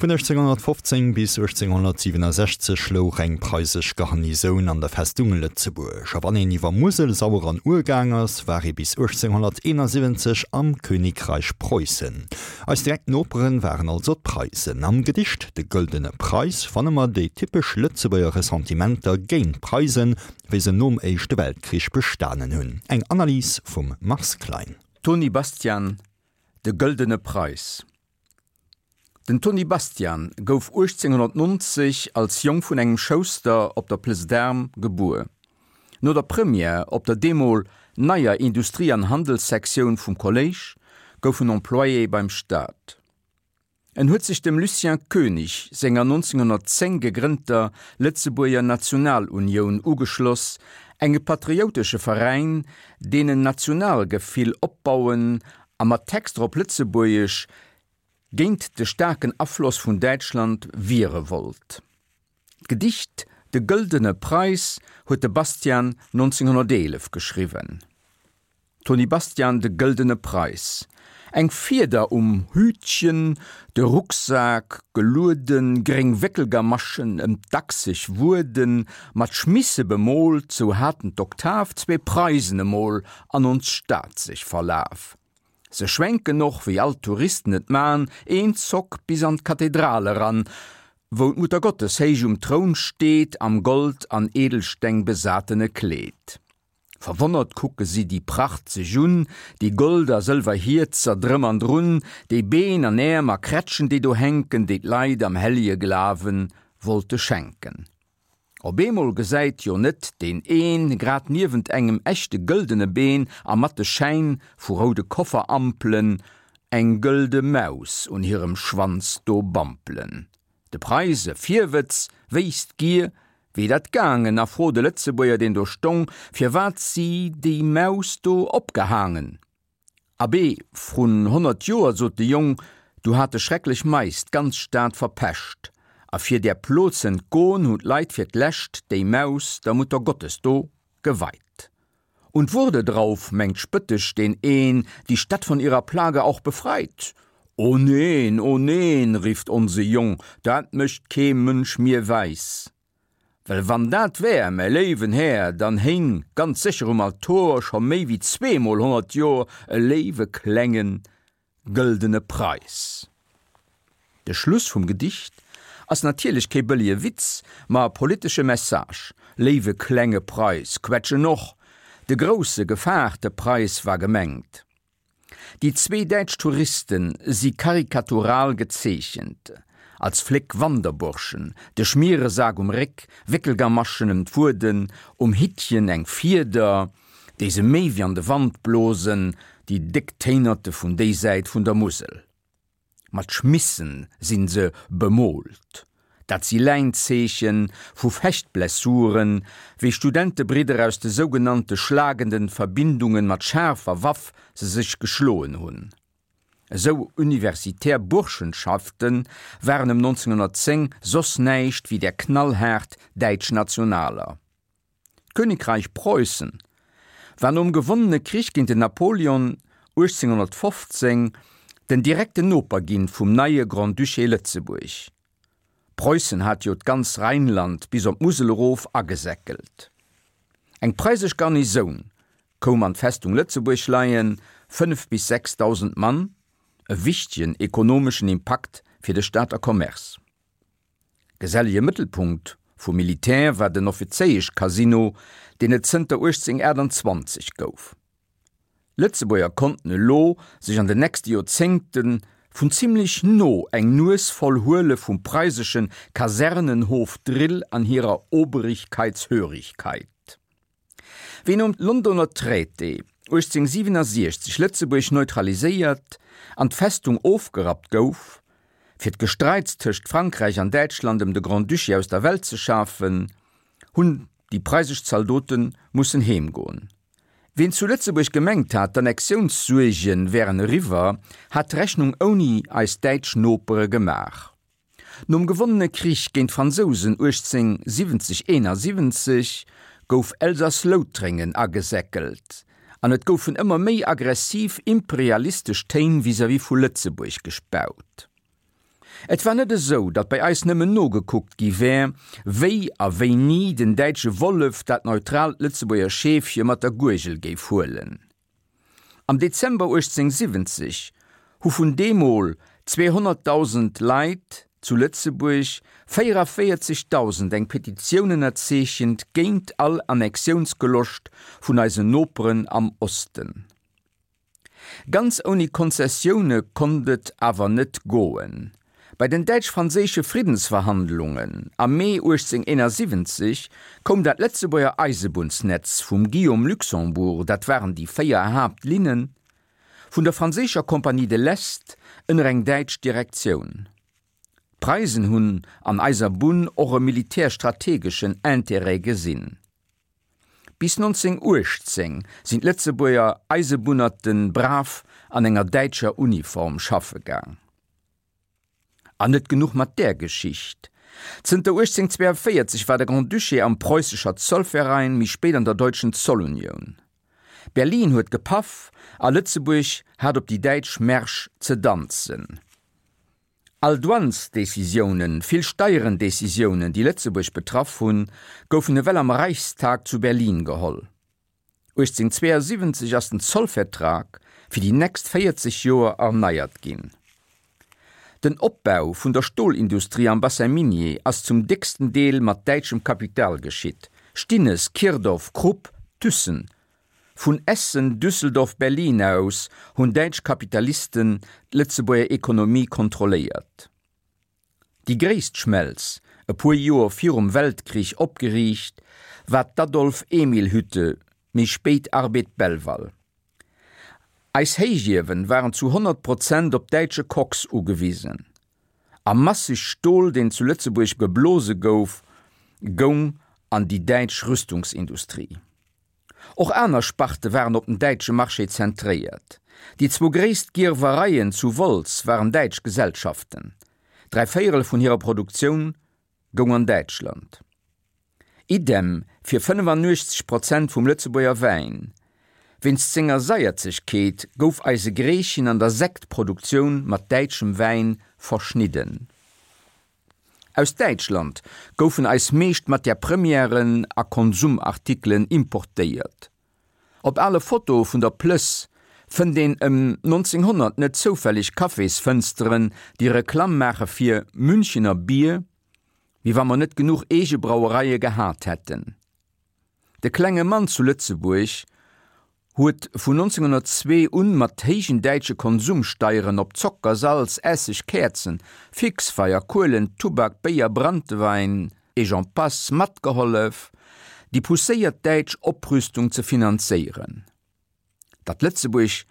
Vun 1815 bis 1867 louch eng preisesch Garnisoun an der Festung Lëtzebuerg. A wann een iwwer Musel, Sauer an Our gaang ass, war ee bis 1871 am Königreich Preußen. Eis direkt Noperen waren also d'Preisen. Am Gedicht De gëldene Preis fanne mer déi typesch Lëtzebuerger Ressentimenter géint d'Preisen, wéi se nom Éischte Weltkrich bestanen hunn. Eng Analys vum Mars Klein. Tony Bastian, De gëldene Preis. Den Tony Bastian gouf 1890 als Jong vun engem Schouster op der Place d'Armes gebuer. No der Première op der deemol neier Industrie an Handelssektioun vum Kolléisch gouf en Employé beim Staat. En huet sech dem Lucien Koenig senger 1910 gegrënnter Lëtzebuerger Nationalunioun ugeschloss, enge patrioutesche Veräin, deen en Nationalgefill opbauen a mat Texter op Lëtzebuergesch géint de staarken Afloss vun Däitschland wiere wollt. D'Gedicht De gëldene Preis huet de Bastian 1911 geschriwwen. Tony Bastian, De gëldene Preis. Eng Fieder um Hütchen, de Rucksak gelueden, gréng Wéckelgamaschen ëm d'Achseg wueden, mat Schmisse bemoolt, sou haten d'Oktav zwee Preisen emol an ons Stad sech verlaf. Se schwenken och, wéi all d'Touristen et man, een Zock bis an d'Kathedral eran, wou d'Muttergottes héich um Troun steet, am Gold an Edelsteng besatene Kleed. Verwonnert kucke si déi Pracht sech un, déi Gold a sëlwer Hierzer drëm an drun, déi Been an Äerm a Krätschen, déi do hänken, déi d'Leit am hellje Glawe wollte schenken. Op eemol gesäit jo net deen een, grad niewent engem echte gëldene Been a mat de Schäin vu roude Kofferampelen, eng gëlde Maus un hirem Schwanz do bampelen. De Preise Virwëtz wéisst d'Gier, wéi dat gaangen, a frot e Lëtzebuerger, deen do stong, firwat si déi Maus do opgehaangen. Abee, vrun 100 Joer, sot de Jong, du hate schrecklech Mais d'ganz Stad verpescht, a fir där Plo z'entgon, hun d'Leit fir d'lescht déi Maus der Muttergottes do geweit. Und wurde drauf, mengt spöttesch deen een, die Stadt von ihrer Plage auch befreit? O neen, o neen, rifft onse Jong, dat mécht kee Mënsch mir wäis. Well wann dat wär, mäi léiwen Här, dann héing ganz sécher um Altor scho méi wéi zweemol 100 Jor e léiwe klenge gëldene Preis. De Schluss vum Gedicht ass natierlech kee bëllege Witz, ma e politesche Message, Léiwe klenge Preis, quetsch en och! De grousse, gefaarte Preis war gemengt. Déi zwee däitsch Touriste si karikatural gezeechent, als fléck Wanderburschen, de Schmieresak um Réck, Wéckelgamaschen ëm d'Wueden, um Hittchen eng Fieder, déi se méi wéi an de Wand blosen, déi déck Téinerte vun déi Säit vun der Musel. Mat Schmissen sinn se bemoolt. Dat si Läinzeeche vu Fechtblessuren, wéi Studentebridder aus de sougenannte schlagenden Verbindungen mat schaarfer Waff se sech geschloen hunn. Esou universitär Burschenschafte waren ëm 1910 soss näischt wéi där knallhaart däitsch Nationaler. D'Königreich Preußen war nom gewonnene Krich géint den Napoleon 1815 den direkten Noper ginn vum neie Grand-Duché Lëtzebuerg. Preußen hat jo d'ganz Rheinland bis op d'Musel erof agesäckelt. Eng preisesch Garnisoun koum an d'Festung Lëtzebuerg leien, 5 bis 6.000 Mann, e wichtegen ekonomeschen Impakt fir de Stater Commerce. Gesellege Mëttelpunkt vum Militär war den Offizéieschcasino, deen et zënter 1828 gouf. Lëtzebuerger konnten elo sech an den nächste Joerzéngte vun zimmlech no eng Nues voll huele vum preisesche Kasernenhof-Drill an hirer Obrigkeitshörigkeit. Wéi nom Londoner Traité 1867 Lëtzebuerg neutraliséiert an d'Festung ofgerappt gouf, fir d'Gestreits tëscht Frankräich an Däitschland ëm de Grand-Duché aus der Welt ze schafen, hunn déi preisesch Zaldote mussen heemgoen. Ween zu Lëtzebuerg gemengt hat, d'Annexiounssuerge wären eriwwer, hat d'Rechnung ouni eis däitsch Nopere gemaach. Nom gewonnene Krich géint d'Fransousen 1870, 71 gouf Elsass-Loutrengen agesäckelt an et goufen ëmmer méi aggressiv imperialistesch Téin vis-à-vis vu Lëtzebuerg gespaut. Et war net esou, datt bei eis nëmmen nogekuckt gi wär, wéi a wéini den däitsche Wollef dat neutraalt Lëtzebuerger Scheefche mat der Guergel géif huelen. Am Dezember 1870 hu vun deemol 200.000 Leit zu Lëtzebuerg 44.000 eng Petitioun ënnerzeechent géint all Annexiounsgeloscht vun eisen Noperen am Osten. Ganz ouni Konzessioune konnt et awer net goen. Bei den däitsch-franséische Friddensverhandlungen am Mee 1871 koum dat Lëtzebuerger Eisebunnsnetz vum Guillaume Luxembourg, dat waren déi 4 Haaptlinnen, vun der franséischer Compagnie de l'Est ënner eng däitsch Direktioun. D'Preisen hunn an eiser Bunn och e militärstrategeschen Intérêt gesinn. Bis 1918 sinn d'Lëtzebuerger Eisebunnerte brav an enger däitscher Uniform schaffe gaang. An net genuch mat där Geschicht, Zënter 1842 war de Grand-Duché am Preußischer Zollverein, méi spéit an der Deutschen Zollunion. Berlin huet gepaff a Lëtzebuerg hat op déi däitsch Märsch ze danzen. All Douanesdecisiounen, vill Steierendecisiounen, déi Lëtzebuerg betraff hunn, goufen ewell am Reichstag zu Berlin geholl. 1872 ass den Zollvertrag fir déi nächst 40 Joer erneiert ginn. Den Opbau vun der Stolindustrie am Bassin minier ass zum décksten Deel mat däitschem Kapital geschitt, Stinnes, Kirdorf, Krupp, Thyssen, Vun Essen, Düsseldorf, Berlin aus hunn däitsch Kapitalisten d'Lëtzebuerger Ekonomie kontrolléiert. Déi gréisst Schmelz, e puer Joer virum Weltkrich opgeriicht, war d'Adolf-Emil-Hütte, méi spéit Arbed Belval. Eis Héichiewen waren zu 100 Prozent op däitsche Koks ugewisen. A masseg Stol, deen zu Lëtzebuerg geblose gouf, goung an déi däitsch Rüstungsindustrie. Och aner Sparte waren op den däitsche Marché zentréiert. Déi zwou gréisst Gierwereien zu Wolz waren däitsch Gesellschaften. Dräivéierel vun hirer Produktioun goung an Däitschland. Idem fir 85 Prozent vum Lëtzebuerger Wäin. Wéinst senger Saierzegkeet gouf eise Greechen an der Sektproduktioun mat däitschem Wäin verschnidden. Aus Däitschland goufen eis meescht Matière premièren a Konsumartikelen importéiert. Op ale Fotoe vun der Plëss fënnt een ëm 1900 net zoufälleg Cafésfënsteren, déi Reklamm maache fir Münchener Bier, wéi wa mer net genuch eege Brauereie gehat hätten. De klenge Mann zu Lëtzebuerg huet vun 1902 un mat héijen däitsche Konsumsteieren op Zocker, Salz, Esseg, Käerzen, Fixfeier, Kuelen, Tubak, Béier, Branntewein et j'en passe matgehollef, déi pousséiert däitsch Oprüstung ze finanzéieren. Datt Lëtzebuerg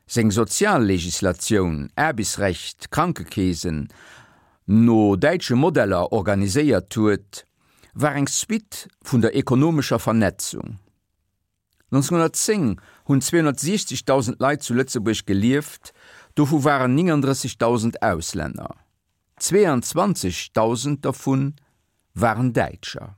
seng Soziallegislatioun, Aarbechtsrecht, Krankekeesen, no däitsche Modeller organiséiert huet, war eng Suite vun der ekonomescher Vernetzung. 1910 hunn 260.000 Leit zu Lëtzebuerg gelieft, dovu waren 39.000 Auslänner. 22.000 dervu waren Däitscher.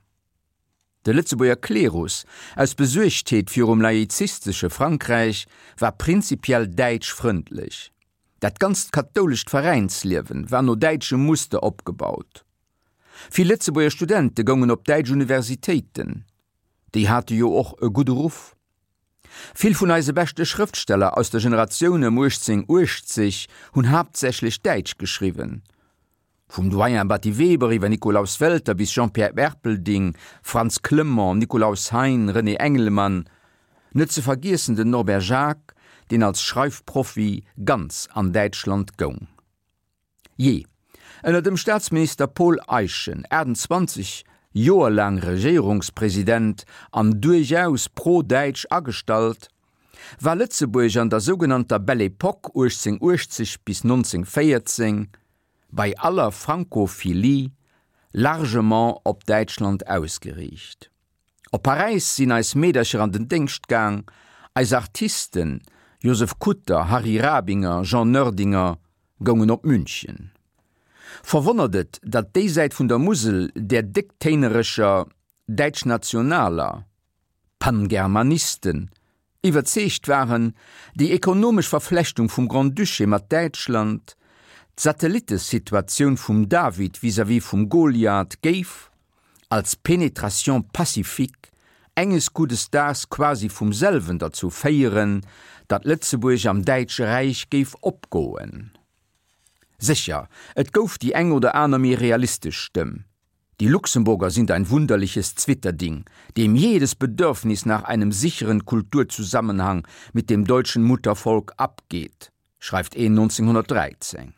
De Lëtzebuerger Klerus, aus Besuergtheet virum laizistesche Frankräich, war prinzipiell däitschfrëndlech. Dat ganzt kathoulescht Veräinsliewen war no däitschem Muster opgebaut. Vill Lëtzebuerger Studente goungen op däitsch Universitéiten. Déi hate jo och e gudde Ruff. Vill vun eise beschte Schrëftsteller aus der Generatioun ëm 1880 hunn haaptsächlech Däitsch geschriwwen. Vum Doyen Batty Weber iwwer Nikolaus Welter bis Jean-Pierre Erpelding, Frantz Clement, Nikolaus Hein, René Engelmann, net ze vergiessen den Norbert Jacques, deen als Schreifprofi ganz an Däitschland goung. Jee, ënner dem Staatsminister Paul Eyschen, 28 Joer laang Regéierungspresident an duerchaus pro-däitsch agestallt, war Lëtzebuerg an der sougenannter Belle Époque 1880 bis 1914 bei aller Francophilie largement op Däitschland ausgeriicht. Op Paräis sinn eis Meedercher an den Déngscht gaang, eis Artisten, Josef Kutter, Harry Rabinger, Jean Noerdinger, goungen op München. Verwonnert et, datt déi Säit vun der Musel där décktéinereger Däitschnationaler, Pangermanisten, iwwerzeegt waren, déi ekonomesch Verflechtung vum Grand-Duché mat Däitschland. D'Satellitesituatioun vum David vis-à-vis vum Goliath géif, als Pénétration pacifique, enges guddes Daags quasi vum selwen derzou féieren, datt Lëtzebuerg am Däitsche Räich géif opgoen. Sécher, et gouf déi eng oder aner méi realistesch Stëmm, Die Luxemburger sind ein wunderliches Zwitterding, dem jedes Bedürfnis nach einem sicheren Kulturzusammenhang mit dem deutschen Muttervolk abgeht, schreift een 1913.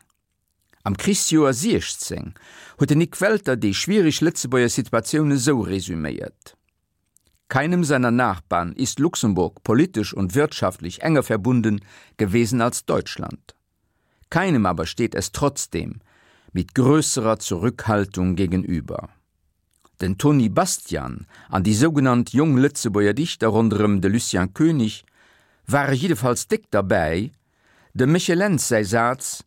Am Krichsjoer 16 huet den Nik Welter déi schwiereg Lëtzebuerger Situatioun esou resüméiert, Keinem seiner Nachbarn ist Luxemburg politisch und wirtschaftlich enger verbunden gewesen als Deutschland. Keinem aber steht es trotzdem mit größerer Zurückhaltung gegenüber. Den Tony Bastian an déi sougenannt Jong Lëtzebuerger Dichter ronderëm de Lucien Koenig ware jiddefalls déck derbäi, dem Michel Lentz säi Saz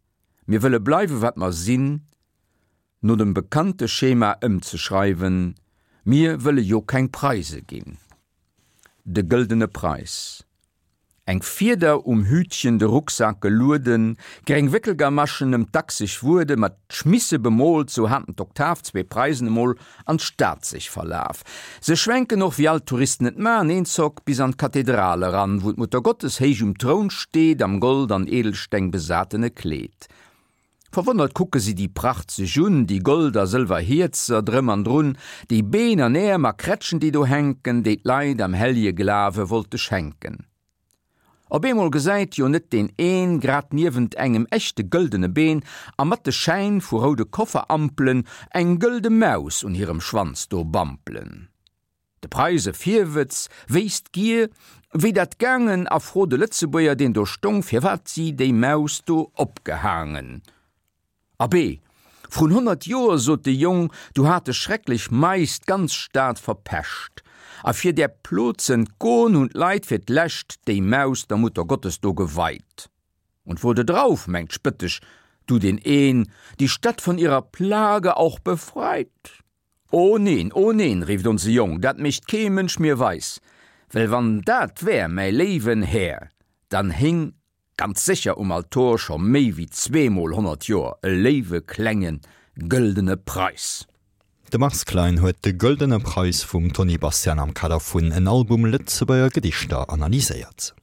Mir wëlle bleiwe wat mer sinn no dem bekannte Schema ëmzeschreiwen, Mir wëlle jo keng Preise ginn. De gëldene Preis. Eng Fieder um Hütchen, de Rucksak gelueden, gréng Wéckelgamaschen ëm d'Achseg wuede, mat Schmisse bemoolt, sou haten d'Oktav zwee Preisen emol an d'Stad sech verlaf. Se schwenken och, wéi all d'Touristen et man, eenzock bis an d'Kathedral eran, wou d'Muttergottes héich um Troun steet, am Gold an Edelsteng besatene Kleed. Verwonnert kucke si déi Pracht sech un, déi Gold a sëlwer Hierzer drëm an drun, déi Been an Äerm a Krätschen, déi do hänken, déi d'Leit am hellje Glawe wollte schenken. Op eemol gesäit jo net deen een, grad niewent engem echte gëldene Been a mat de Schäin vu roude Kofferampelen, eng gëlde Maus un hirem Schwanz do bampelen. De Preise Virwëtz wéisst gier, wéi dat gaangen a frot de Lëtzebuerger, deen do stong, firwat si déi Maus do opgehaangen. Abee, vrun 100 Joer, sot de Jong, du hate schrecklech Mais d'ganz Stad verpescht, a fir där Plo z'entgon, hun d'Leit fir d'lescht déi Maus der Muttergottes do geweit. Und wurde drauf, mengt spëttesch du deen een, die Stadt von ihrer Plage auch befreit. O neen, o neen, rífft onse Jong, dat mécht kee Mënsch mir weis, well wann dat wär, mäi léiwen Här, dann héing ganz sécher um Altor scho méi wéi zweemol 100 Joer e léiwe klenge gëldene Preis. De Mars Klein huet de Gëldene Preis vum Tony Bastian am Kader vun En Album Lëtzebuerger Gedichter analyséiert.